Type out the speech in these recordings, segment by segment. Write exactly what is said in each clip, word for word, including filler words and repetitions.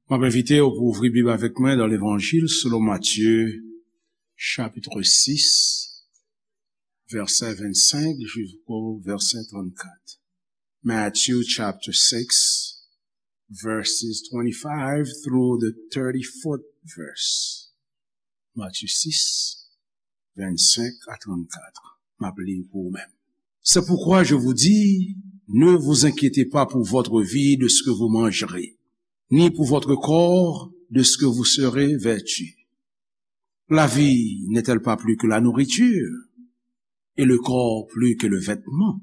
M ap envite w pou ouvri Bib avèk mwen nan Levanjil selon Matye, chapit sis, vèsè vennsenk jisko vèsè trannkat. Matthew chapter six, verses twenty-five through the thirty-fourth verse. Matye sis, vennsenk a trannkat. M ap li pou ou menm. C'est pourquoi je vous dis, ne vous inquiétez pas pour votre vie de ce que vous mangerez, ni pour votre corps de ce que vous serez vêtu. La vie n'est-elle pas plus que la nourriture, et le corps plus que le vêtement ?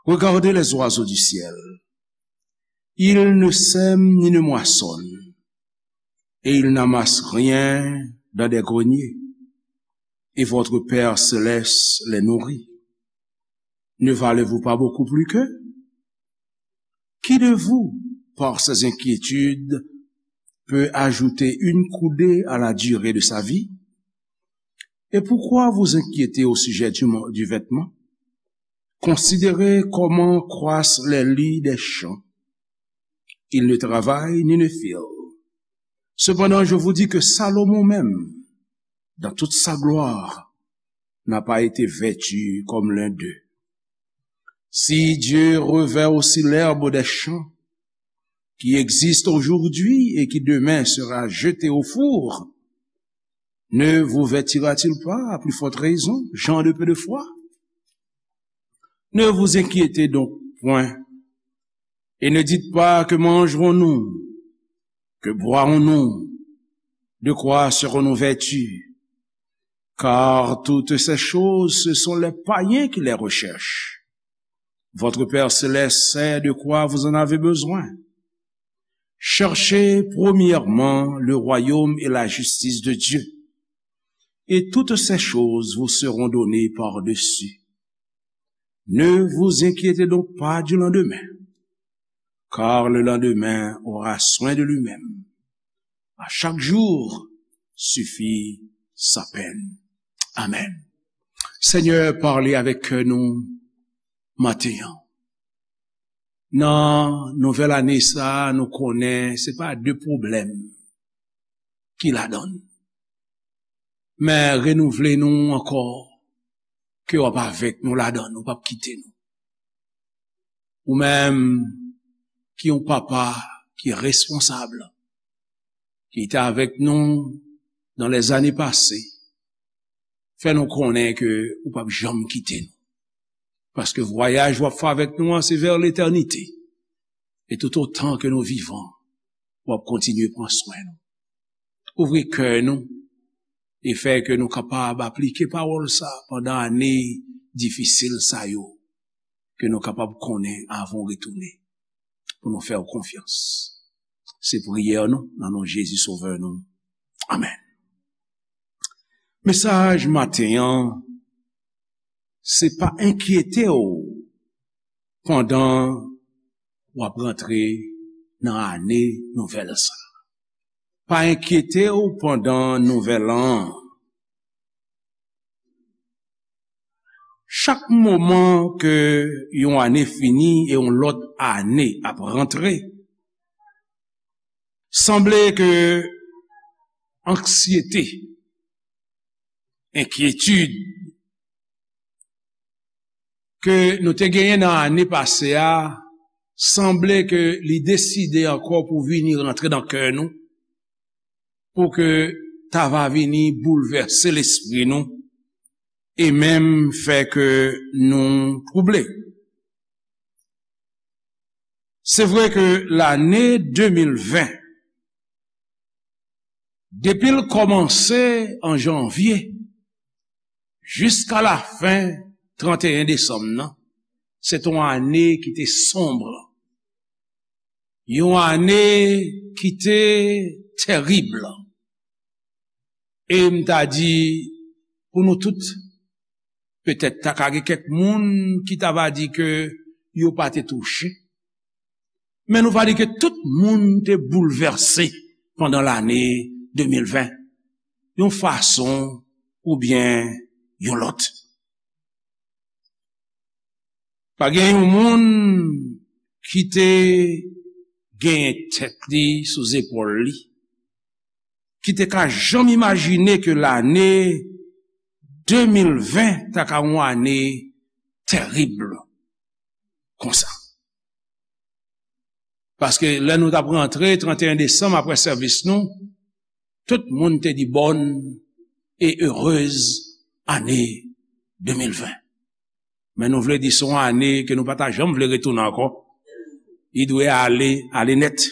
Regardez les oiseaux du ciel. Ils ne sèment ni ne moissonnent, et ils n'amassent rien dans des greniers, et votre Père céleste les nourrit. Ne valez-vous pas beaucoup plus qu'eux ? Qui de vous, par ses inquiétudes, peut ajouter une coudée à la durée de sa vie ? Et pourquoi vous inquiéter au sujet du, mo- du vêtement ? Considérez comment croissent les lys des champs. Ils ne travaillent ni ne filent. Cependant, je vous dis que Salomon même, dans toute sa gloire, n'a pas été vêtu comme l'un d'eux. Si Dieu revêt aussi l'herbe des champs, qui existe aujourd'hui et qui demain sera jetée au four, ne vous vêtira-t-il pas à plus forte raison, gens de peu de foi ? Ne vous inquiétez donc point, et ne dites pas : que mangerons-nous ? Que boirons-nous ? De quoi serons-nous vêtus ? Car toutes ces choses, ce sont les païens qui les recherchent. Votre Père céleste sait de quoi vous en avez besoin. Cherchez premièrement le royaume et la justice de Dieu, et toutes ces choses vous seront données par-dessus. Ne vous inquiétez donc pas du lendemain, car le lendemain aura soin de lui-même. À chaque jour suffit sa peine. Amen. Senyè, pale avèk kè nou maten an. Nan nouvèl ane sa a, nou konnen se pa de pwoblèm ki ladan l. Men renouvle nou ankò, ke w ap avèk nou ladan l, ou p ap kite nou. Ou menm ki yon papa ki responsab, ki te avèk nou nan lèzane pase, fè nou konnen ke ou p ap janm kite nou. Paske vwayaj w ap fè avèk nou an, se vè letènite. E toutotan ke nou vivan, w ap kontinye pran swen nou. Ouvri kè nou e fè ke nou kapab aplike pawòl sa pandan ane difisil sa yo, ke nou kapab konnen avan w retounen, pou nou fè w konfyans. Se priyè nou, nan non Jezi Sovè nou. Amèn. Mesaj maten an, se pa enkyete w pandan w ap rantre nan ane nouvèl sa. Pa enkyete w pandan nouvèl an. Chak moman ke yon ane fini e yon lòt ane ap rantre, sanble ke anksyete, enkyetid ke nou te genyen nan ane pase a, sanble ke li deside ankò pou vini rantre nan kè nou, pou ke ta va vini boulvèse lespri nou, e menm fè ke nou twouble. Se vre ke lane de mil ven, depi l kòmanse an janvye jiska lafen tranteyen desanm nan, se t on ane ki te sonb, yon ane ki te tèrib. E m ta di, pou nou tout, petèt ta ka gen kèk moun ki ta va di ke yo pa te touche. Men nou va di ke tout moun te boulvèse pandan lane de mil ven, yon fason oubyen yon lòt. Pa gen yon moun ki te genyen tèt li sou zepòl li, ki te ka janm imajine ke lane de mil ven ta ka yon ane tèrib konsa. Paske lè nou t ap rantre trannteyen desanm apre sèvis nou, tout moun te di bonne et heureuse année deux mille vingt. Men nou vle di se yon ane ke nou pa ta janm vle retounen ankò. Li dwe ale, ale nèt.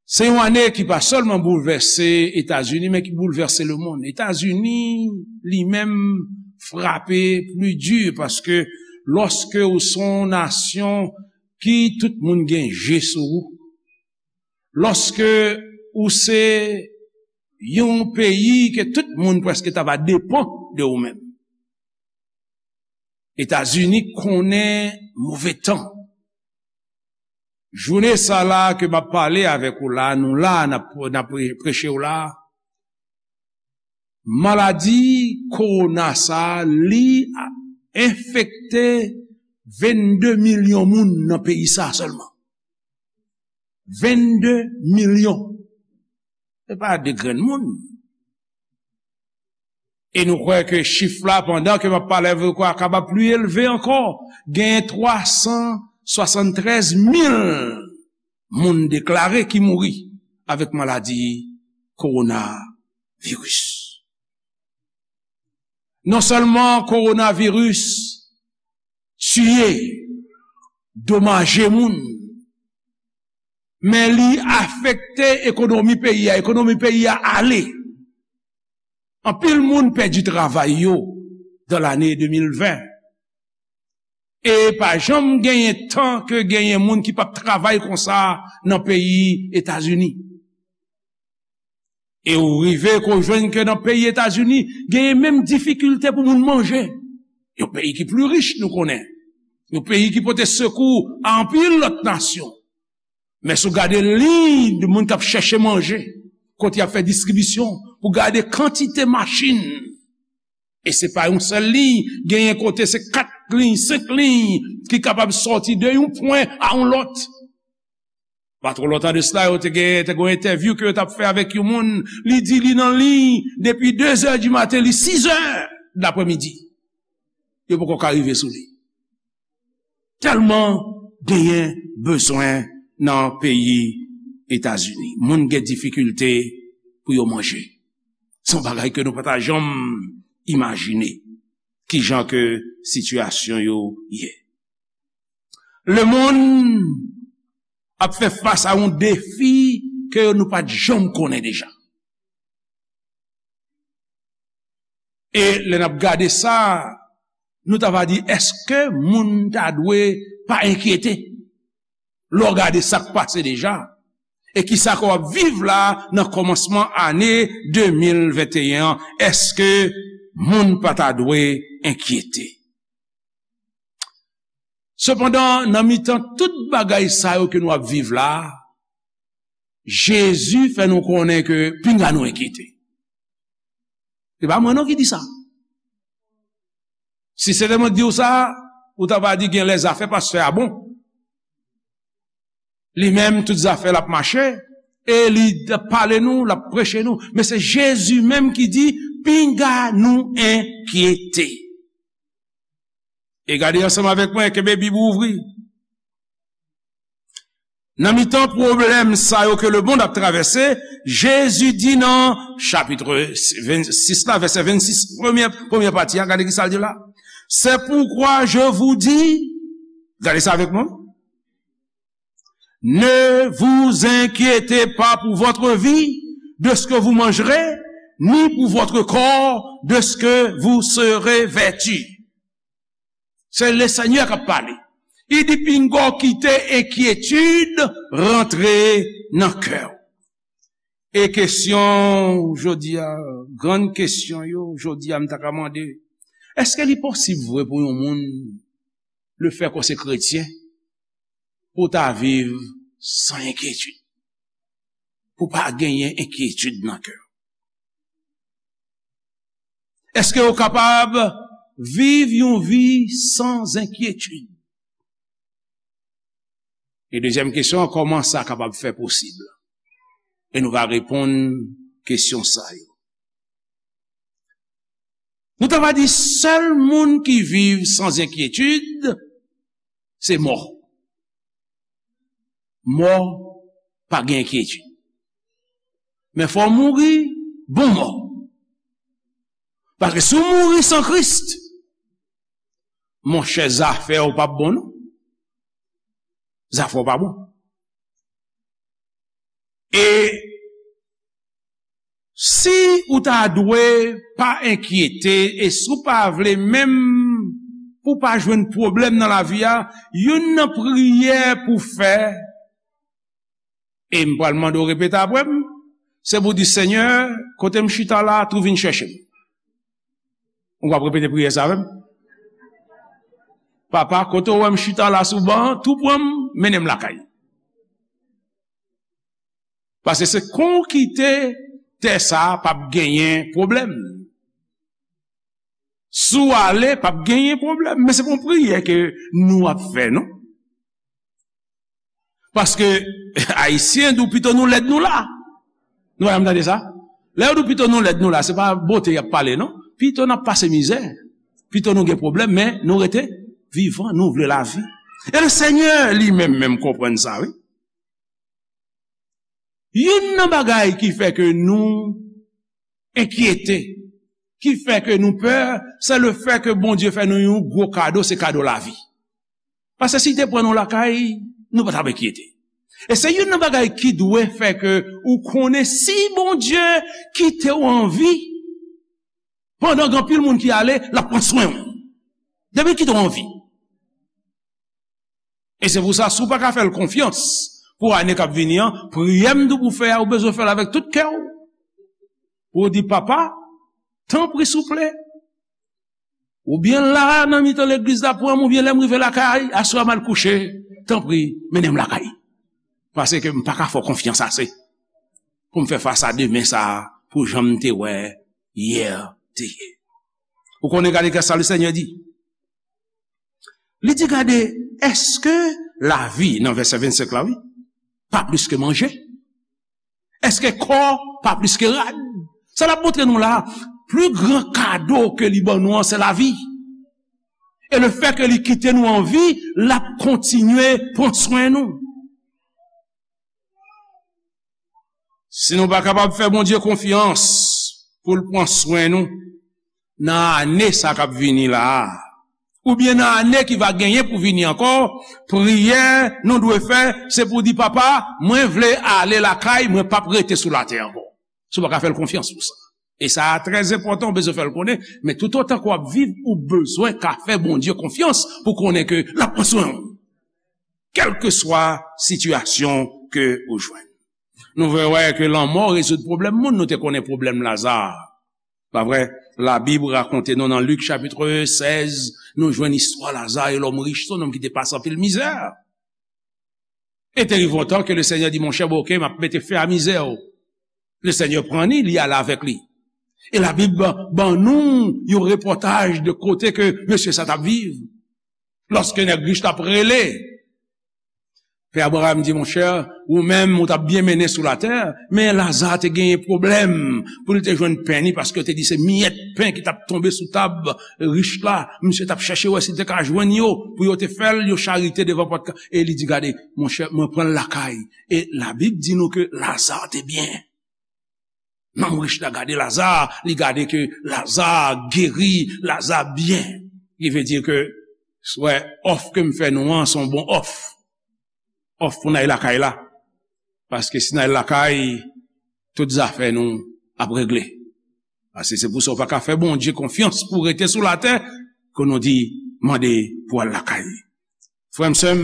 Se yon ane ki pa sèlman boulvèse Etazini, men ki boulvèse lemonn. Etazini, li menm, frape pli di, paske lòske ou se yon nasyon ki tout moun gen je sou ou, lòske ou se yon peyi ke tout moun prèske ta va depann de ou menm, Etazini konnen move tan. Jounen sa la ke m ap pale avèk ou la, nou la, n ap, n ap pre-, preche w la, maladi kowona sa a, li enfekte vennde milyon moun nan peyi sa a sèlman. Vennde milyon. Se pa de grenn moun. E nou kwè ke chif la, pandan ke m ap pale avèk ou, a kapab pli elve ankò. Genyen twa san swasanntrèz mil moun deklare ki mouri avèk maladi kowonaviris. Non sèlman kowonaviris tiye, domaje moun, men li afekte ekonomi peyi a. Ekonomi peyi a ale. Anpil moun pèdi travay yo dan lane de mil ven. E pa janm genyen tan ke genyen moun ki p ap travay konsa nan peyi Etazini. E ou rive ke w jwenn ke nan peyi Etazini, genyen menm difikilte pou moun manje. Yon peyi ki pli rich, nou konnen. Yon peyi ki pote sekou a anpil lòt nasyon. Men si w gade liy de moun k ap chèche manje, kote y ap fè distribisyon, pou gade kantite machin. E se pa yon sèl liy, genyen kote se kat liy, senk liy ki kapab sòti de yon pwen a yon lòt. Pa twò lontan de sila, yo te gen, te gen yon entèvyou ke yo t ap fè avèk yon moun. Li di li nan liy depi de zè di maten, li sis zè daprèmidi. Yo poko ka rive sou li. Tèlman genyen bezwen nan peyi Etazini. Moun gen difikilte pou yo manje. Se yon bagay ke nou pa ta janm imajine kijan ke sitiyasyon yo ye. Lemonn ap fè fas a yon defi ke nou pa t janm konnen deja. E lè n ap gade sa, nou ta va di, èske moun ta dwe pa enkyete? Lè w gade sa k pase deja, e kisa ke w ap viv la nan kòmansman ane de mil venteyen an, èske moun pa ta dwe enkyete? Sepandan, nan mitan tout bagay sa yo ke nou ap viv la, Jezi fè nou konnen ke pinga nou enkyete. Se pa mwen non ki di sa. Si se te mwen ki di w sa, ou ta va di gen lè zafè pastè a bon. Li menm, tout zafè l ap mache, e li ap pale nou, l ap preche nou. Men se Jezi menm ki di, pinga nou enkyete. E gade ansanm avèk mwen, kenbe Bib ou ouvri. Nan mitan pwoblèm sa yo ke lemonn ap travèse, Jezi di nan chapit vennsis la, vèsè vennsis, premyè, premyè pati a, gade kisa l di la. C'est pourquoi je vous dis, gade sa avèk mwen. Ne vous inquiétez pas pour votre vie, de ce que vous mangerez, ni pour votre corps, de ce que vous serez vêtu. Se Lesenyè k ap pale. Li di, pinga w kite enkyetid rantre nan kè w. E kesyon jodi a, grann kesyon yo, jodi a, m ta ka mande, èske li posib vre pou yon moun, lefètke w se kretyen, pou w ta viv san enkyetid? Pou w pa genyen enkyetid nan kè w? Èske w kapab viv yon vi san enkyetid? E dezyèm kesyon an, kòman sa kapab fè posib? E nou va reponn kesyon sa yo. Nou ta va di sèl moun ki viv san enkyetid, se mò. Mò pa gen enkyetid. Men fò w mouri bon mò. Paske si w mouri san Kris, monchè, zafè w p ap bon non. Zafè w pa bon. E si ou ta dwe pa enkyete, e si w pa vle menm pou w pa jwenn pwoblèm nan lavi a, youn nan priyè pou w fè, e m pral mande w repete apre m, se pou w di, Senyè, kote m chita la, tou vin chèche m. Ou p ap repete priyè sa avè m? Papa, kote w wè m chita la sou ban an, tou pran m, mennen m lakay. Paske se kon w kite tè sa a, p ap genyen pwoblèm. Si w ale, p ap genyen pwoblèm. Men se pa yon priyè ke nou ap fè, non. Paske Ayisyen di w pito nou lèd nou la. Nou pa janm tande sa? Lè yo di w pito nou lèd nou la, se pa bote y ap pale, non. Pito n ap pase mizè. Pito nou gen pwoblèm, men nou rete vivan, nou vle lavi. E le Senyè li menm, menm konprann sa, wi. Youn nan bagay ki fè ke nou enkyete, ki fè ke nou pè, se le fè ke Bondye fè nou yon gwo kado, se kado lavi. Paske si l te pran nou lakay, nou pa t ap enkyete. E se youn nan bagay ki dwe fè ke ou konnen si Bondye kite w an vi, pandan gen anpil moun ki ale, l ap pran swen w. Depi l kite w an vi. E se pou sa, si w pa ka fè l konfyans pou ane k ap vini an, priyè m di w pou w fè a, ou bezwen fè l avèk tout kè w. Pou w di, Papa, tanpri, souple, oubyen la, nan mitan legliz la, pran m, oubyen lè m rive lakay, aswè a m al kouche, tanpri, mennen m lakay. Paske m pa ka fè w konfyans ase pou m fè fas a demen sa a, pou jan m te wè yè te ye. Ou konnen, gade kisa Lesenyè di. Li di, gade, èske lavi, nan vèsè vennsenk la, wi, pa plis ke manje? Èske kò pa plis ke rad? Sa l ap montre nou la, pli gran kado ke li ban nou an, se lavi. E le fè ke li kite nou an vi, l ap kontinye pran swen nou. Si nou pa kapab fè Bondye konfyans pou l pran swen nou nan ane sa k ap vini la a, oubyen nan ane ki va genyen pou vini ankò, priyè nou dwe fè, se pou di, Papa, mwen vle ale lakay, mwen p ap rete sou latè ankò. Si w pa ka fè l konfyans pou sa. E sa a trè enpòtan, ou bezwen fè l konnen, men toutotan ke w ap viv, ou bezwen ka fè Bondye konfyans pou konnen ke l ap pran swen w. Kèlkeswa sitiyasyon ke ou jwenn. Nou vle wè ke lanmò rezoud pwoblèm moun, nou te konnen pwoblèm Laza. Pa vre? Labib rakonte nou nan Lik chapit sèz, nou jwenn istwa Laza e lòm rich, se yon nonm ki te pase anpil mizè. E te rive yon tan ke Lesenyè di, monchè, bon, oke, m ap mete fen a mizè w. Lesenyè pran li, li ale avèk li. E Labib ban, ban nou yon repòtaj de kote ke mesye sa t ap viv. Lòske nèg rich la ap rele, Pè Abraram di, monchè, ou menm, ou t ap byen mennen sou latè, men Laza te genyen pwoblèm pou l te jwenn pen ni, paske yo te di se miyèt pen ki t ap tonbe sou tab rich la. Misye t ap chèche wè si l te ka jwenn yo, pou yo te fè l yon charite devan pòt ka-, e li di, gade, monchè, mwen pran l lakay. E Labib di nou ke Laza te byen. Nonm rich la gade Laza, li gade ke Laza geri, Laza byen. Ki vle di ke, wè, òf ke m fè nou an, se yon bon òf. Òf pou n al lakay la. Paske si n al lakay, tout zafè nou ap regle. Paske se pou sa w pa ka fè Bondye konfyans pou w rete sou latè, ke nou di, mande pou w al lakay. Frè m, sè m,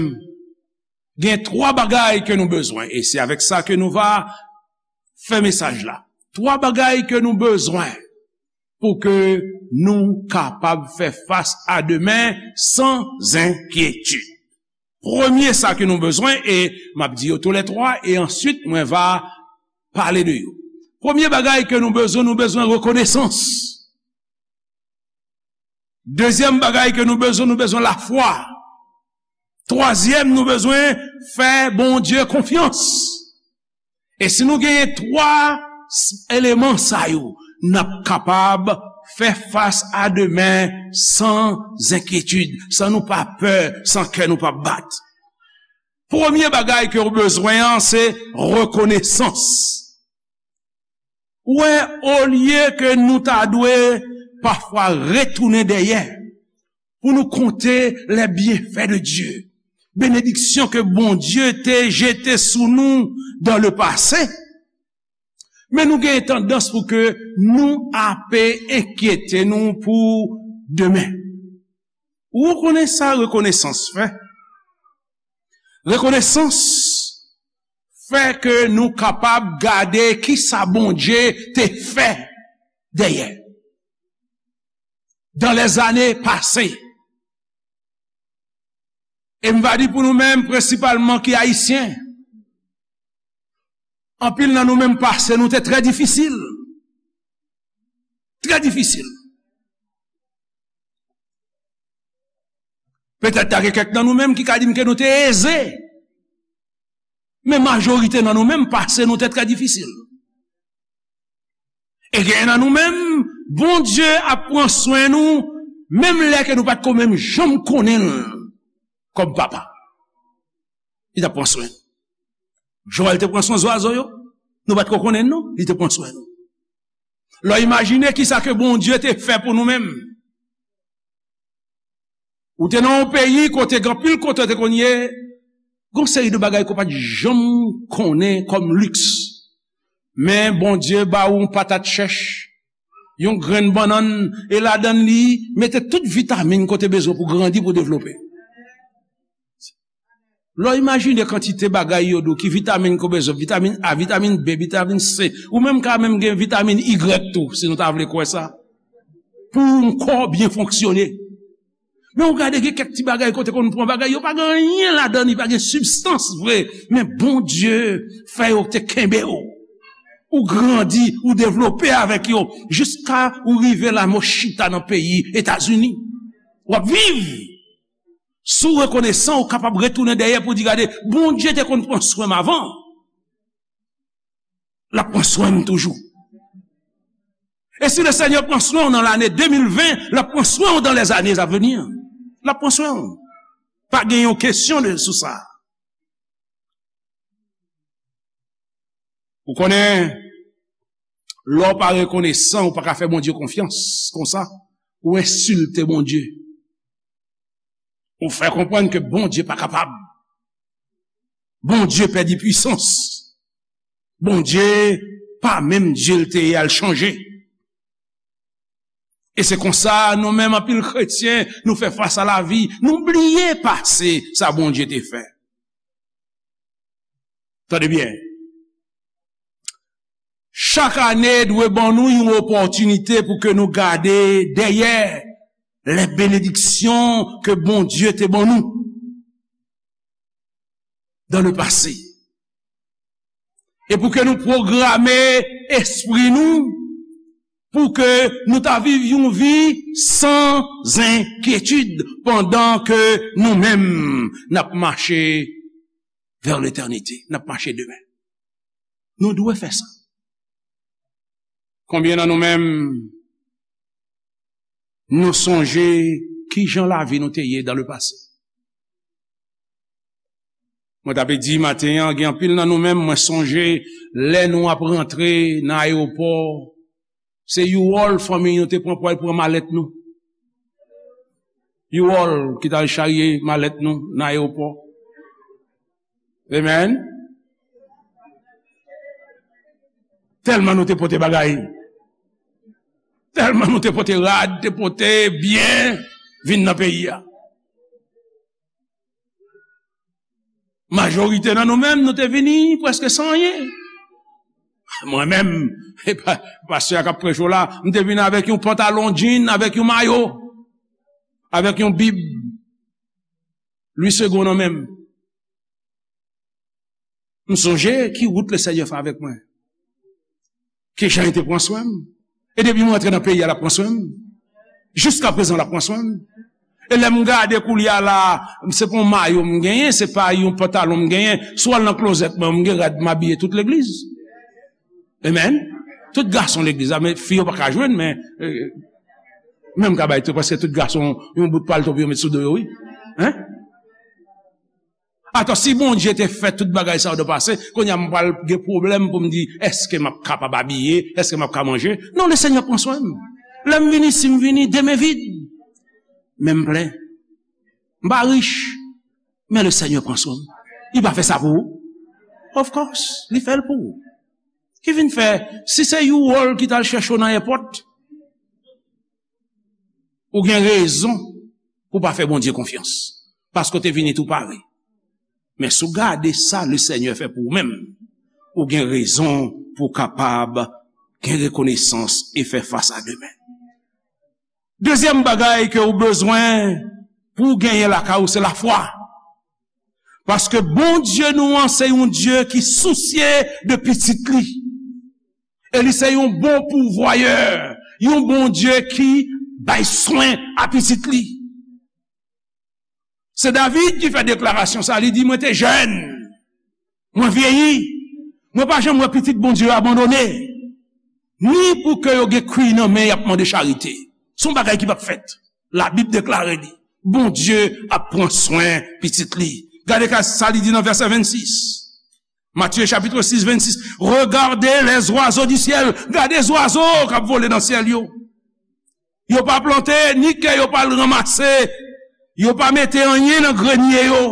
gen twa bagay ke nou bezwen, e se avèk sa ke nou va fè mesaj la. Twa bagay ke nou bezwen pou ke nou kapab fè fas a demen san enkyetid. Premye sa ke nou bezwen, e m ap di yo toulètwa, e answit mwen va pale de yo. Premye bagay ke nou bezwen, nou bezwen rekonesans. Dezyèm bagay ke nou bezwen, nou bezwen lafwa. Twazyèm, nou bezwen fè Bondye konfyans. E si nou genyen twa s-, eleman sa yo, n ap kapab fè fas a demen san enkyetid, san nou pa pè, san kè nou pa bat. Premye bagay ke w bezwen an, se rekonesans. Ou wè, olye ke nou ta dwe pafwa retounen dèyè pou nou konte les bienfaits de Dieu, benediksyon ke Bondye te jete sou nou dans le passé, men nou gen tandans pou ke nou ape enkyete nou pou demen. Ou konnen sa rekonesans fè? Rekonesans fè ke nou kapab gade kisa Bondye te fè dèyè, dans les années passées. E m va di pou nou menm, prensipalman ki ayisyen, anpil nan nou menm pase nou te trè difisil. Trè difisil. Petèt ta gen kèk nan nou menm ki ka di m ke nou te eze. Men majorite nan nou menm, pase nou te trè difisil. E gen nan nou menm, Bondye ap pran swen nou, menm lè ke nou pa t ko menm janm konnen l kòm papa. Li t ap pran swen nou. Jan l te pran swen zwazo yo, nou pa t ko konnen l non, li te pran swen nou. Lè w imajine kisa ke Bondye te fè pou nou menm. Ou te nan yon peyi kote gen anpil kote w te konn ye, gen yon seri de bagay ke w pa t janm konnen kòm liks. Men Bondye ba ou yon patat chèch, yon grenn bannann, e ladann li, mete tout vitamin ke w te bezwen pou grandi, pou devlope. Lè w imajine kantite bagay yo di w ki vitamin ke w bezwen, vitamin A, vitamin B, vitamin C, ou menm ka menm gen vitamin Y tou, si nou ta vle kwè sa. Pou yon kò byen fonksyone. Men ou gade gen kèk ti bagay kote konn pran bagay, yo pa gen anyen ladan, li pa gen sibstans vre. Men Bondye fè yo te kenbe w. Ou grandi, ou devlope avèk yo, jiska ou rive la men w chita nan peyi Etazini. W ap viv. Si w rekonesan, ou kapab retounen dèyè pou di, gade, Bondye te konn pran swen m avan. L ap pran swen m toujou. E si Lesenyè pran swen w nan lane de mil ven, l ap pran swen w dans les années à venir. L ap pran swen w. Pa gen yon kesyon de, sou sa. Ou konnen, lè w pa rekonesan, ou pa ka fè Bondye konfyans. Konsa, ou ensilte Bondye. Ou fè konprann ke Bondye pa kapab. Bondye pèdi pwisans. Bondye pa menm Dye l te ye a, l chanje. E se konsa, nou menm anpil kretyen, nou fè fas a lavi, nou bliye pase sa Bondye te fè. Tande byen. Chak ane dwe ban nou yon opòtinite pou ke nou gade dèyè les bénédictions ke Bondye te ban nou dans le passé. E pou ke nou pwograme espri nou, pou ke nou ta viv yon vi san enkyetid pandan ke nou menm n ap mache vers l'éternité, n ap mache demen. Nou dwe fè sa. Konbyen nan nou menm, nou sonje kijan lavi nou te ye dans le passé? Mwen t ap di maten an, gen anpil nan nou menm, mwen sonje lè nou ap rantre nan ayewopò, se U-Haul fanmi nou te pran pou al pran malèt nou. U-Haul ki t al charye malèt nou nan ayewopò. Amen. Tèlman nou te pote bagay. Tèlman nou te pote rad, te pote byen, vin nan peyi a. Majorite nan nou menm, nou te vini prèske san anyen. Mwen menm, e pa, pastè a k ap preche w la, m te vini avèk yon pantalon jean, avèk yon mayo, avèk yon bib Louis Segond nan men m. M sonje ki wout Lesenyè fè avèk mwen. Kijan li te pran swen m. E depi mwen antre nan peyi a, l ap pran swen m. Jiskaprezan, l ap pran swen m. E lè m gade koulye a la, se pa yon mayo m genyen, se pa yon pantalon m genyen. Si w al nan klozèt mwen, m gen rad m abiye tout legliz. Amen. Tout gason legliz la, men fi yo pa ka jwenn, men, eh, men m ka bay tou, paske tout gason, yon bout palto pou yo met sou do yo, wi. Hein? Atò, si Bondye te fè tout bagay sa yo nan pase, kounye a m pral gen pwoblèm pou m di, èske m ap kapab abiye? Èske m ap ka manje? Non, le Senyè pran swen m. Lè m vini, si m vini, de men vid. Men m plen. M pa rich, men le Senyè pran swen m. Li pa fè sa pou ou? Of course, li fè l pou ou. Ki vin fè, si se yon wòl ki t al chèche w nan èpòt, ou gen rezon pou w pa fè Bondye konfyans. Paske w te vini tou pare. Men si w gade sa le Senyè fè pou ou menm, ou gen rezon pou w kapab gen rekonesans e fè fas a demen. Dezyèm bagay ke w bezwen pou w genyen lakay ou, se lafwa. Paske Bondye nou an, se yon Dye ki sousye de pitit li. E li se yon bon pouvwayè, yon Bondye ki bay swen a pitit li. Se David ki fè deklarasyon sa, li di, mwen te jèn, mwen vyeyi, mwen pa janm wè pitit Bondye yo abandone, ni pou ke yo gen kwi nan men y ap mande charite. Se yon bagay ki p ap fèt. Labib deklare li. Bondye ap pran swen pitit li. Gade ka sa li di nan vèsè vennsis. Matthieu chapitre six, vingt-six. Regardez les oiseaux du ciel. Gade zwazo k ap vole nan syèl yo. Yo pa plante, ni ke yo pa al ranmase. Yo pa mete anyen nan grenye yo.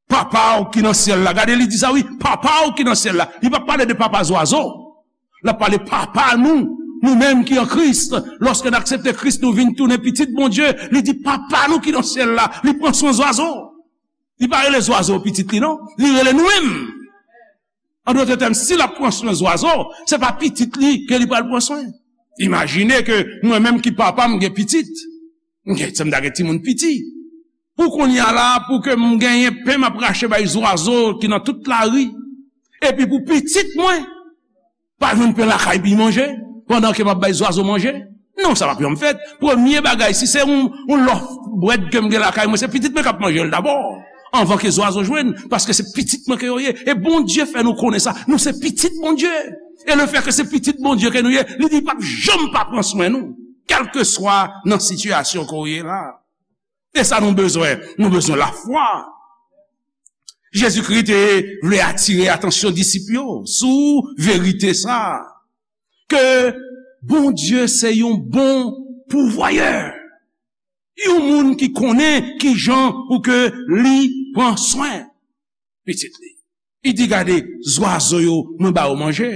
Papa w ki nan syèl la. Gade, li di sa, wi. Papa w ki nan syèl la. Li pa pale de papa zwazo. L ap pale papa nou, nou menm ki an Kris. Lòske n aksepte Kris, nou vin tounen pitit Bondye. Li di, papa nou ki nan syèl la, li pran swen zwazo. Li pa rele zwazo pitit li, non. Li rele nou menm. An dòt tèm, si l ap pran swen zwazo, se pa pitit li ke li pral pran swen. Imajine ke mwen menm ki papa, m gen pitit. M gen, se m ta gen timoun piti. Pou kounye a la, pou ke m genyen pen m ap rache bay zwazo ki nan tout lari. Epi pou pitit mwen, pa jwenn pen lakay pou l manje, pandan ke m ap bay zwazo manje. Non, sa p ap janm fèt. Premye bagay, si se yon, yon lòf brèd ke m gen lakay mwen, se pitit mwen k ap manje l dabò, anvan ke zwazo jwenn, paske se pitit mwen ke yo ye. E Bondye fè nou konnen sa, nou se pitit Bondye. E lefètke se pitit Bondye ke nou ye, li di l p ap janm pa pran swen nou, kèlkeswa nan sitiyasyon ke w ye la. E sa nou bezwen, nou bezwen lafwa. Jezikri te vle atire atansyon disip yo sou verite sa, ke Bondye se yon bon pouvwayè, yon moun ki konnen kijan pou ke li pran swen pitit li. Li di, gade, zwazo yo, mwen ba yo manje.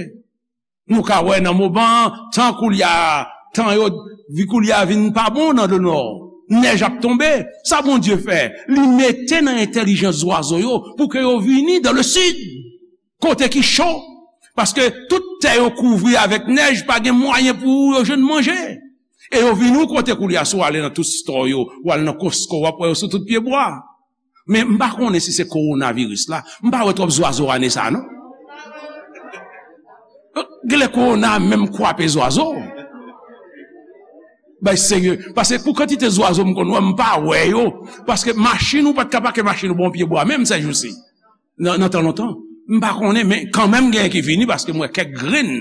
Nou ka wè nan moman, tan koulye a, tan yo, vi koulye a vin pa bon nan le nò. Nèj ap tonbe. Sa Bondye fè? Li mete nan entèlijans zwazo yo pou ke yo vini dans le sud, kote ki cho. Paske tout tè yo kouvri avèk nèj, pa gen mwayen pou yo jwenn manje. E yo vini yon kote koulye a, si w ale nan tout store yo, w al nan Costco, w ap wè yo sou tout pyebwa. Men m pa konnen si se kowonaviris la. M pa wè twòp zwazo ane sa a, non. Genlè kowona a menm kwape zwazo. Bay serye. Paske pou kantite zwazo m konn wè, m pa wè yo. Paske machin ou pa t ka pake machin ou bò yon pyebwa menm sèjousi. Nan, nan tan lontan. M pa konnen, men kanmenm genyen ki vini paske m wè kèk grenn.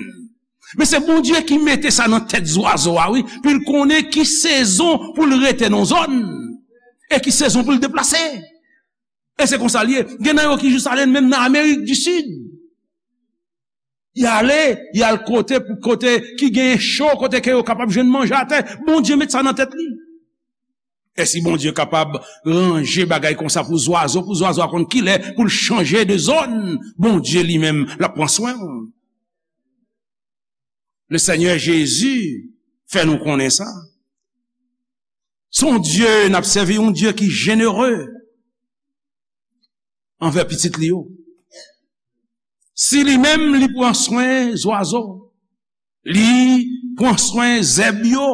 Men se Bondye ki mete sa nan tèt zwazo a, wi. Pou l konnen ki sezon pou l rete nan zòn. E ki sezon pou l deplase. E se konsa l ye. Gen nan yo ki jis ale menm nan Amerik di Sid. Y ale, y al kote pou kote ki gen cho, kote ke yo kapab jwenn manje atè. Bondye met sa nan tèt li. E si Bondye kapab ranje bagay konsa pou zwazo, pou zwazo a konn kilè pou l chanje de zòn, Bondye li menm, l ap pran swen w. Le Senyè Jezi fè nou konnen sa. Se yon Dye, n ap sèvi yon Dye ki jenere anvè pitit li yo. Si li menm, li pran swen zwazo, li pran swen zèb yo,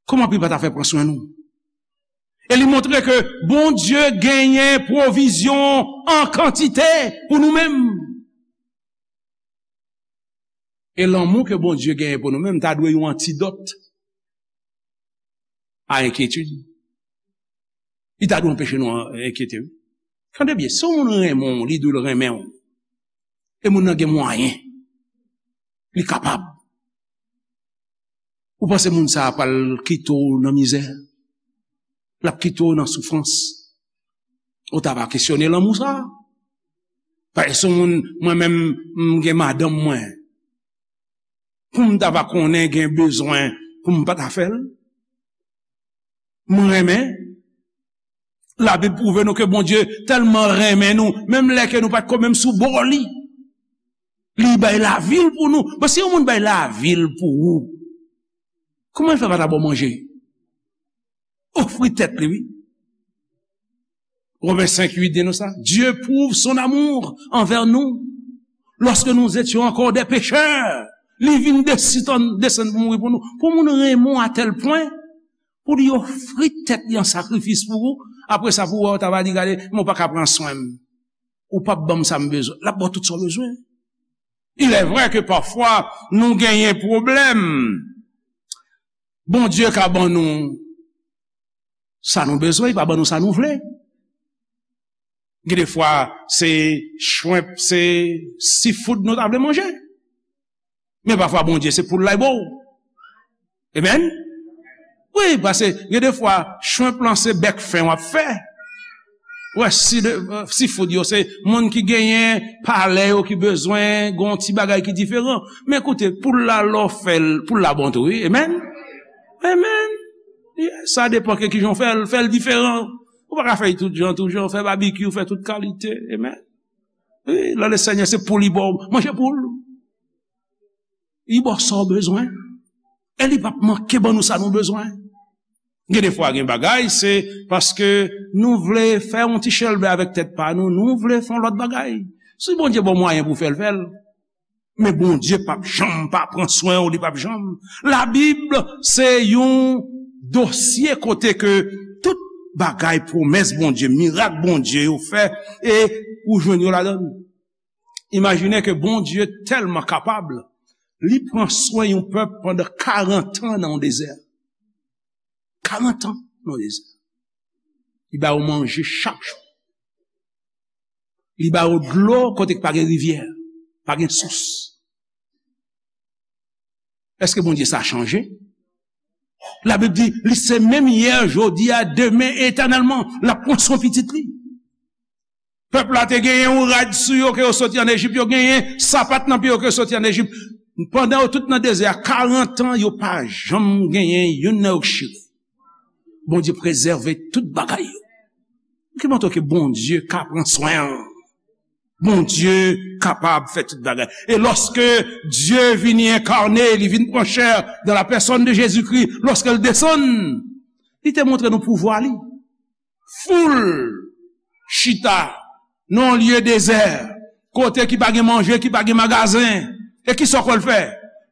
kòman pou li pa ta fè pran swen nou? E li montre ke Bondye genyen pwovizyon an kantite pou nou menm. E lanmou ke Bondye genyen pou nou menm ta dwe yon antidòt. a enkyetid. Li ta dwe anpeche nou an-, enkyete, wi. Tande byen, si yon moun renmen w, li di w l renmen w, e moun nan gen mwayen, li kapab. Ou panse moun sa a pral kite w nan mizè? L ap kite w nan soufrans? Ou ta va kesyone lanmou sa a? Paske si yon moun, mwen menm, m gen madanm mwen, pou m ta va konnen gen bezwen pou m pa ta fè l? Mwen renmen. Labib pwouve nou ke Bondye tèlman renmen nou, menm lè ke nou pa t ko menm sou bò li, li bay lavi l pou nou. Bon, si yon moun bay lavi l pou ou, kòman l fè pa ta ba w manje? Ofri tèt li, wi. Romen senk uit di nou sa. Dieu prouve son amour envers nous. Lorsque nous étions encore des pécheurs, li vin desann, desann pou mouri pou nou. Pou moun renmen w a tèl pwen, pou li ofri tèt li an sakrifis pou ou, apre sa pou w wè, w ta va di, "Gade, men w pa ka pran swen m. Ou p ap ban m sa m bezwen." L ap ba w tout sa w bezwen. Il est vrai que parfois, nou genyen pwoblèm. Bondye ka ban nou sa nou bezwen, li pa ban nou sa nou vle. Gen de fwa, se shrimp, se seafood nou ta vle manje. Men pafwa, Bondye, se poul la, li ba w. Amen? Wi, paske gen de fwa, shrimp lan se bèk fen w ap fè. Wè, si de, seafood yo, se moun ki genyen palè yo ki bezwen gon ti bagay ki diferan. Men koute, poul la, lè w fè l, poul la bon tou, wi. Amen? Amen. Yeah, sa depan ke kijan w fè l, fè l diferan. Ou pa ka fè l tout jan, tout jan, fè babikyou, fè tout kalite. Amen. Wi, lè Lesenyè se poul li ba w, manje poul. Li ba w sa w bezwen. E li p ap manke ban nou sa nou bezwen. Gen de fwa, gen bagay, se paske nou vle fè yon ti chèlbè avèk tèt pa nou, nou vle fè yon lòt bagay. Si Bondye ba w mwayen pou fè l, fè l. Men Bondye p ap janm pa pran swen w, li p ap janm. Labib se yon dosye kote ke tout bagay, pwomès Bondye, mirak Bondye yo fè, e ou jwenn yo ladan l. Imajine ke Bondye tèlman kapab, li pran swen yon pèp pandan karant an nan yon dezè. Karant an nan yon dezè. Li ba yo manje chak jou. Li ba yo dlo kote k pa gen rivyè, pa gen sous. Èske Bondye sa chanje? Labib di, li se menm yè, jodi a, demen, etènèlman. L ap pran swen pitit li. Pèp la te genyen yon rad sou yo ke yo soti ann Ejip, yo genyen sapat nan pye yo ke yo soti ann Ejip. Pandan yo tout nan dezè a, karant an, yo pa janm genyen youn nan yo k chire. Bondye prezève tout bagay yo. Ki montre ke Bondye ka pran swen an. Bondye kapab fè tout bagay. E lòske Dye vini enkane, li vin pran chè dans la personne de Jésus-Christ, lòske l desann, li te montre nou pouvwa li. Foul chita nan yon lye dezè, kote ki pa gen manje, ki pa gen magazen. E ki sa w kwè l fè?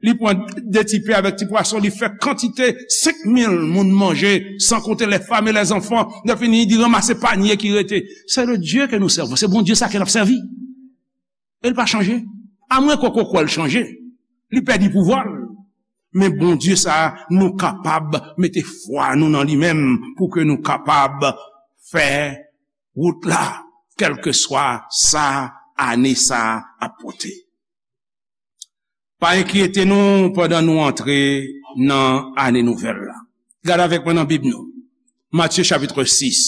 Li pran de ti pen avèk ti pwason, li fè kantite senk mil moun manje, san konte les femmes et les enfants. Lè fini, li ranmase panye ki rete. C'est le Dieu que nous servons. Se Bondye sa ke n ap sèvi. E l pa chanje. Amwen ke w kwè l chanje. Li pèdi pouvwa l. Men Bondye sa a, nou kapab mete fwa nou nan li menm pou ke nou kapab fè wout la, kèlkeswa sa ane sa a ap pote. Pa enkyete nou pandan nou antre nan ane nouvèl la. Gade avèk mwen nan Bib nou. Matye chapit sis.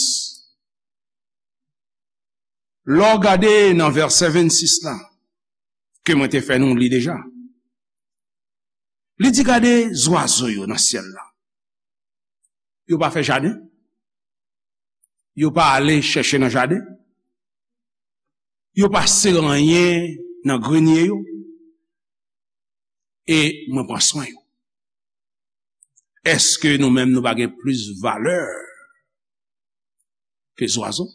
Lè w gade nan vèsè vennsis la, ke mwen te fè nou li deja, li di, "Gade zwazo yo nan syèl la. Yo pa fè jaden. Yo pa ale chèche nan jaden. Yo pa sere anyen nan grenye yo. E mwen pran swen yo." Èske nou menm nou pa gen plis valè ke zwazo?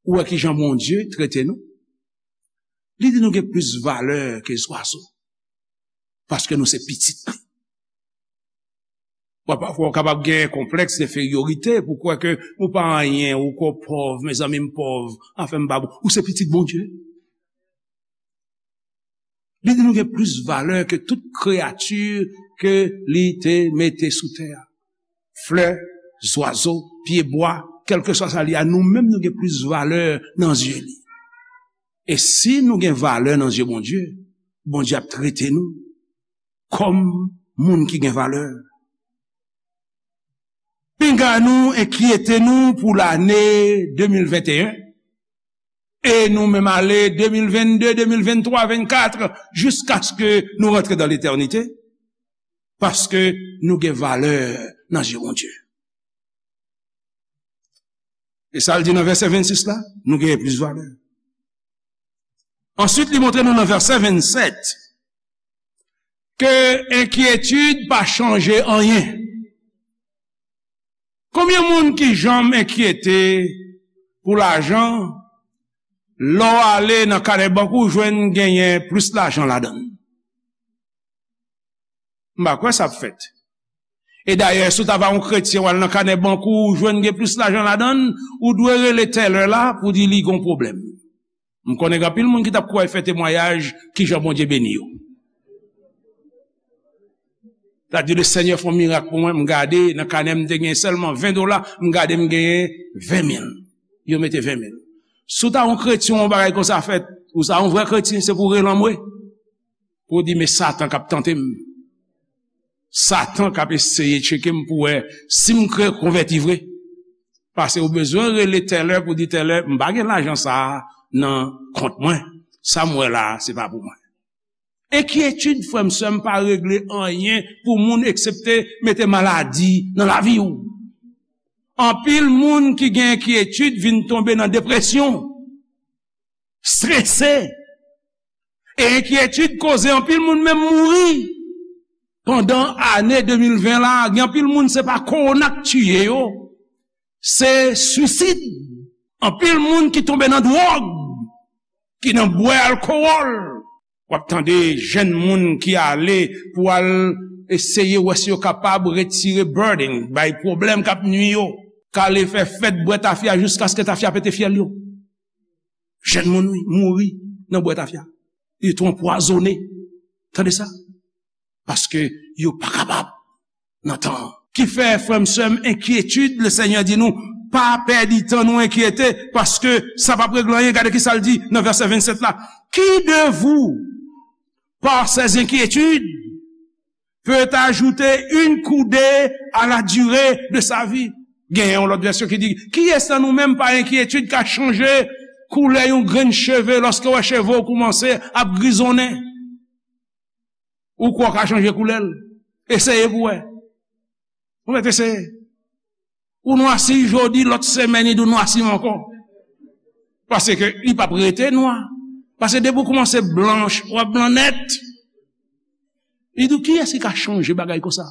Ou wè kijan Bondye trete nou? Li di nou gen plis valè ke zwazo. Paske nou se pitit li. Bon, pafwa, w kapab gen konplèks enferiorite pou kwè ke ou pa anyen, ou kwè w pòv, mezanmi, m pòv, anfen, m pa bon. Ou se pitit Bondye. Li di nou gen plis valè ke tout kreyati ke li te mete sou tè a. flè, zwazo, pyebwa, kèlkeswa sa li a, nou menm nou gen plis valè nan zye li. E si nou gen valè nan zye Bondye, Bondye ap trete nou kòm moun ki gen valè. Pinga nou enkyete nou pou lane de mil venteyen, e nou menm ale de mil vennde, de mil venntwa, vennkat, jiskaske nou rantre dan letènite, paske nou gen valè nan zye Bondye. E sa l di nan vèsè vennsis la, nou genyen plis valè. Answit, li montre nou nan vèsè vennsèt ke enkyetid pa chanje anyen. Konbyen moun ki janm enkyete pou lajan, lè w ale nan kanè bank ou, jwenn genyen plis lajan ladan l? M pa kwè sa ap fèt. E dayè, si w ta va yon kretyen, w al nan kanè bank ou, ou jwenn gen plis lajan ladan l, ou dwe rele tèlè la pou di li gon pwoblèm. M konnen gen anpil moun ki t ap kouri fè temwayaj kijan Bondye beni yo. T ap di, "Le Senyè fè yon mirak pou mwen, m gade nan kanè m te gen sèlman ven dola, m gade m genyen ven mil." Yo mete ven mil. Si w ta yon kretyen, yon bagay konsa fèt, ou sa yon vrè kretyen, se pou w rele anmwe. Pou w di, "Men Satan k ap tante m. Satan k ap eseye tcheke m pou wè si m kreye konvèti vre." Paske ou bezwen rele tèlè pou di, "Tèlè, m pa gen lajan sa a nan kont mwen. Sa m wè la a, se pa pou mwen." Enkyetid, frè m, sè m, pa regle anyen pou moun eksepte mete maladi nan lavi w. Anpil moun ki gen enkyetid vin tonbe nan depresyon, strese. E enkyetid koze anpil moun menm mouri. Pandan ane de mil ven la, gen anpil moun se pa kowona k tiye yo, se swisid. Anpil moun ki tonbe nan dwòg, ki nan bwè alkowòl. W ap tande jèn moun ki ale pou al eseye wè si yo kapab retire burden, bay pwoblèm k ap nwi yo, k ale fè fèt bwè tafya jiskaske tafya pete fyèl yo. Jèn moun, wi, mouri nan bwè tafya. Yo tou anpwazone. Tande sa? Paske yo pa kapab nan tan an. Ki fè, frè m, sè m, enkyetid, le Senyè di nou, pa pèdi tan nou enkyete, paske sa p ap regle anyen. Gade ki sa l di nan vèsè vennsèt la. Qui de vous, par ses inquiétudes, peut ajouter une coudée à la durée de sa vie? Gen yon lòt vèsyon ki di, kiyès nan nou menm pa enkyetid ka chanje koulè yon grenn cheve lòske w wè cheve w koumanse ap grizonnen? Ou kwè w ka chanje koulè l? Eseye pou w wè. Ou mèt eseye. Ou nwasi jodi, lòt semèn, li di w nwasi m ankò. Paske li p ap rete nwa. Paske depi w koumanse blanch, w ap blan nèt. Li di w, kiyès ki ka chanje bagay konsa?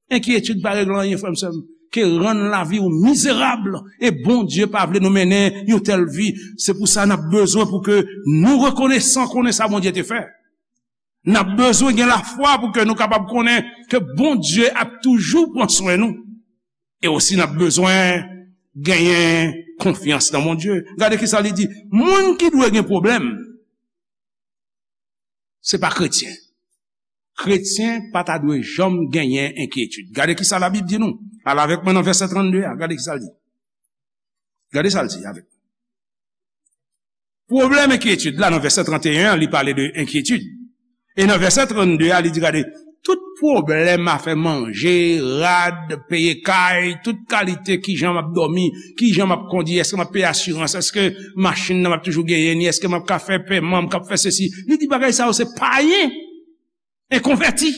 Enkyetid pa regle anyen, frè m, sè m, ke rann lavi w mizerab. E Bondye pa vle nou mennen yon tèl vi. Se pou sa n ap bezwen pou ke nou rekonesan konnen sa Bondye te fè. N ap bezwen gen lafwa pou ke nou kapab konnen ke Bondye ap toujou pran swen nou. E osi n ap bezwen genyen konfyans nan Bondye. Gade ki sa li di, moun ki dwe gen pwoblèm, se pa kretyen. Kretyen pa ta dwe janm genyen enkyetid. Gade ki sa Labib di nou. Al avèk mwen nan vèsè trannde a. Gade ki sa l di. Gade sa l di avèk mwen. Pwoblèm enkyetid la, nan vèsè tranteyen an, li pale de enkyetid. E nan vèsè trannde a, li di, gade, tout pwoblèm afè manje, rad, peye kay, tout kalite, kijan m ap dòmi, kijan m ap kondi, èske m ap peye asirans, èske machin nan m ap toujou genyen ni, èske m ap ka fè pèman, m k ap fè sesi. Li di bagay sa yo se payen. Enkonvèti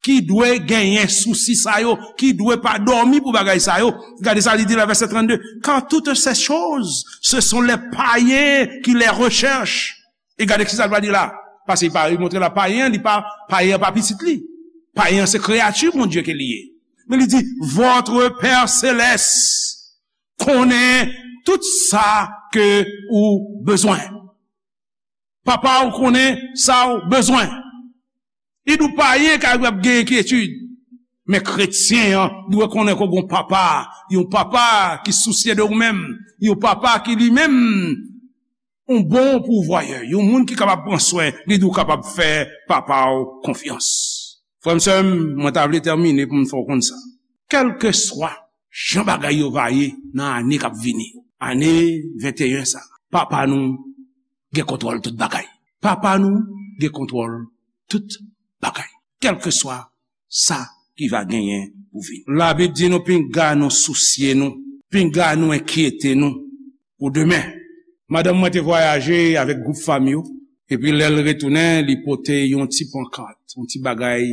ki dwe genyen sousi sa yo, ki dwe pa dòmi pou bagay sa yo. Gade sa li di la, vèsè trannde, car toutes ces choses, ce sont les païens qui les recherchent. E gade ki sa l va di la. Paske li pa, li montre la, payen, li pa, payen pa pitit li. Payen se kreyati Bondye ke li ye. Men li di, votre Père Céleste konnen tout sa ke ou bezwen. Papa w konnen sa w bezwen. Li di w payen ka ap gen enkyetid. Men kretyen an dwe konnen ke w gen yon papa, yon papa ki sousye de ou menm, yon papa ki li menm yon bon pouvwayè, yon moun ki kapab pran swen, li di w kapab fè papa w konfyans. Frè m, sè m, mwen ta vle tèmine pou m fè w konn sa. kèlkeswa jan bagay yo va ye nan ane k ap vini yo, ane venteyen sa, Papa nou gen kontwòl tout bagay. Papa nou gen kontwòl tout bagay. Kèlkeswa sa ki va genyen pou vini. Labib di nou pinga nou sousye nou, pinga nou enkyete nou pou demen. Madanm mwen te vwayaje avèk gwoup fanmi yo, epi lè l retounen, li pote yon ti pankat, yon ti bagay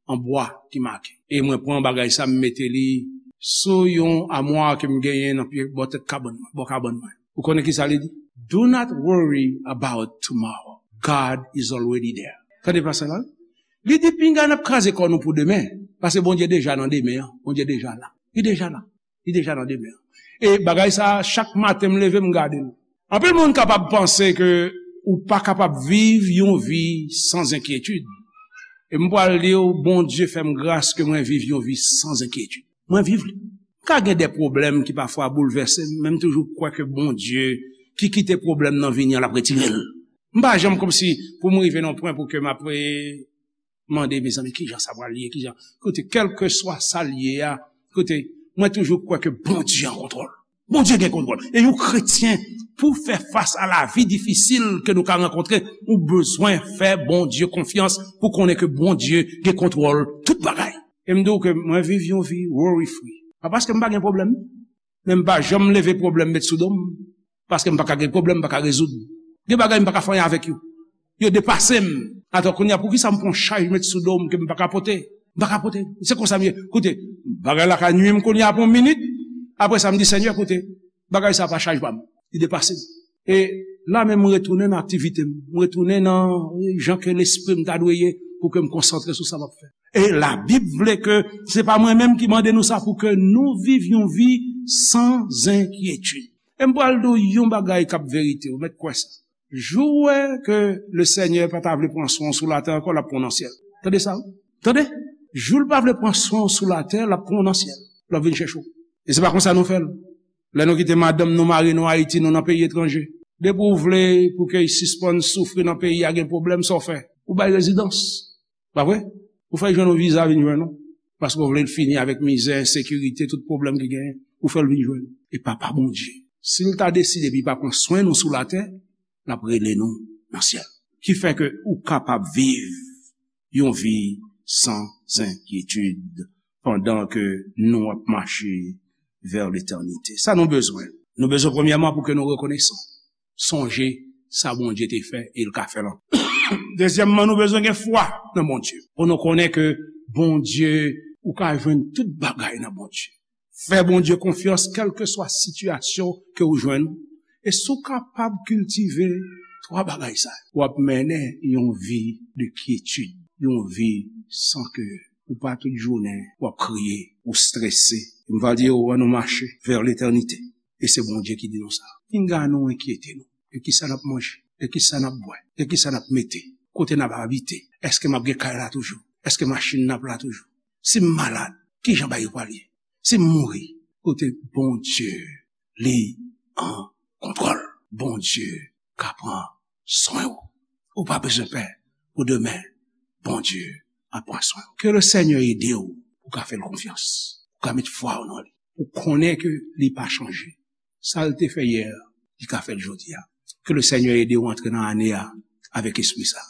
an bwa ki make. E mwen pran bagay sa, m mete li sou yon amwa ke m genyen nan pye bò tèt kabann mwen, bò kabann mwen. Ou konnen ki sa li di? "Do not worry about tomorrow. God is already there." Tande pasaj la. Li di, "Pinga n ap kraze kò nou pou demen, paske Bondye deja nan demen an. Bondye deja la. Li deja la. Li deja nan demen an." E bagay sa, chak maten m leve, m gade l. Anpil moun kapab panse ke ou pa kapab viv yon vi san enkyetid. E m pral di w, Bondye fè m gras ke mwen viv yon vi san enkyetid. Mwen viv li. M ka gen de pwoblèm ki pafwa boulvèse m, men m toujou kwè ke Bondye ki kite pwoblèm nan vini an, l ap retire l. M pa janm kòmsi pou m rive nan pwen pou ke m ap, eh, mande, mezanmi, kijan sa pral ye, kijan. Koute, kèlkeswa sa l ye a, koute, mwen toujou kwè ke Bondye an kontwòl. Bondye gen kontwòl. E yon kretyen, pou fè fas a lavi difisil ke nou ka rankontre, ou bezwen fè Bondye konfyans pou konnen ke Bondye gen kontwòl tout bagay. E m di w ke mwen viv yon vi worry free. Pa paske m pa gen pwoblèm, men m pa janm leve pwoblèm met sou do m, paske m pa ka gen pwoblèm, m pa ka rezoud. Gen bagay m pa ka fè anyen avèk yo. Yo depase m. Atò, kounye a, poukisa m pran chaj met sou do m ke m pa ka pote? M pa ka pote. Se konsa m ye. Koute, bagay la ka nwi m kounye a pou yon minit. Apre sa, m di, "Senyè, koute, bagay sa pa chaj pa m. Li depase m." E la menm, m retounen nan aktivite m. M retounen nan jan ke lespri m ta dwe ye pou ke m konsantre sou sa m ap fè. E Labib vle ke se pa mwen menm ki mande nou sa, pou ke nou viv yon vi san enkyetid. E m pral di w yon bagay k ap verite, ou mèt kwè sa. Jou w wè ke Lesenyè pa ta vle pran swen w sou latè ankò, l ap pran w nan syèl. Tande sa, wi. Tande? Jou l pa vle pran swen w sou latè, l ap pran w nan syèl. L ap vin chèche w. E se pa konsa nou fè l. Lè nou kite madanm nou, mari nou Ayiti, nou nan peyi etranje. Depi w vle pou ke y sispann soufri nan peyi a, gen pwoblèm, sa w fè? Ou bay rezidans. Pa vre? Ou fè l jwenn yon viza, vin jwenn nou. Paske w vle l fini avèk mizè, ensekirite, tout pwoblèm ki genyen. Ou fè l vin jwenn nou. E Papa Bondye, si l ta deside epi pa pran swen nou sou latè, l ap rele nou nan syèl. Ki fè ke ou kapab viv yon vi san enkyetid pandan ke nou ap mache vè letènite. Sa nou bezwen? Nou bezwen, premyèman, pou ke nou rekonesan. Sonje sa Bondye te fè e l ka fè l ankò. Dezyèmman, nou bezwen gen fwa nan Bondye. Pou nou konnen ke Bondye, ou ka jwenn tout bagay nan Bondye. Fè Bondye konfyans, kèlkeswa sitiyasyon ke ou jwenn. E si w kapab kiltive twa bagay sa yo, w ap mennen yon vi de kyetid, yon vi san ke ou pa tout jounen w ap kriye, ou strese. M va di w, ann nou mache vè letènite. E se Bondye ki di nou sa. Pinga nou enkyete nou. E kisa n ap manje? E kisa n ap bwè? E kisa n ap mete? Kote n ap abite? Èske m ap gen kay la toujou? Èske machin n ap la toujou? Si m malad, kijan bagay yo pral ye? Si m mouri, kote Bondye, li an kontwòl. Bondye ka pran swen w. Ou pa bezwen pè pou demen. Bondye ap pran swen w. Ke Lesenyè ede w pou w ka fè l konfyans. Pou w ka met fwa w nan li. Ou konnen ke li pa chanje. Sa l te fè yè, li ka fè l jodi a. Ke Lesenyè ede w antre nan ane a avèk espri sa.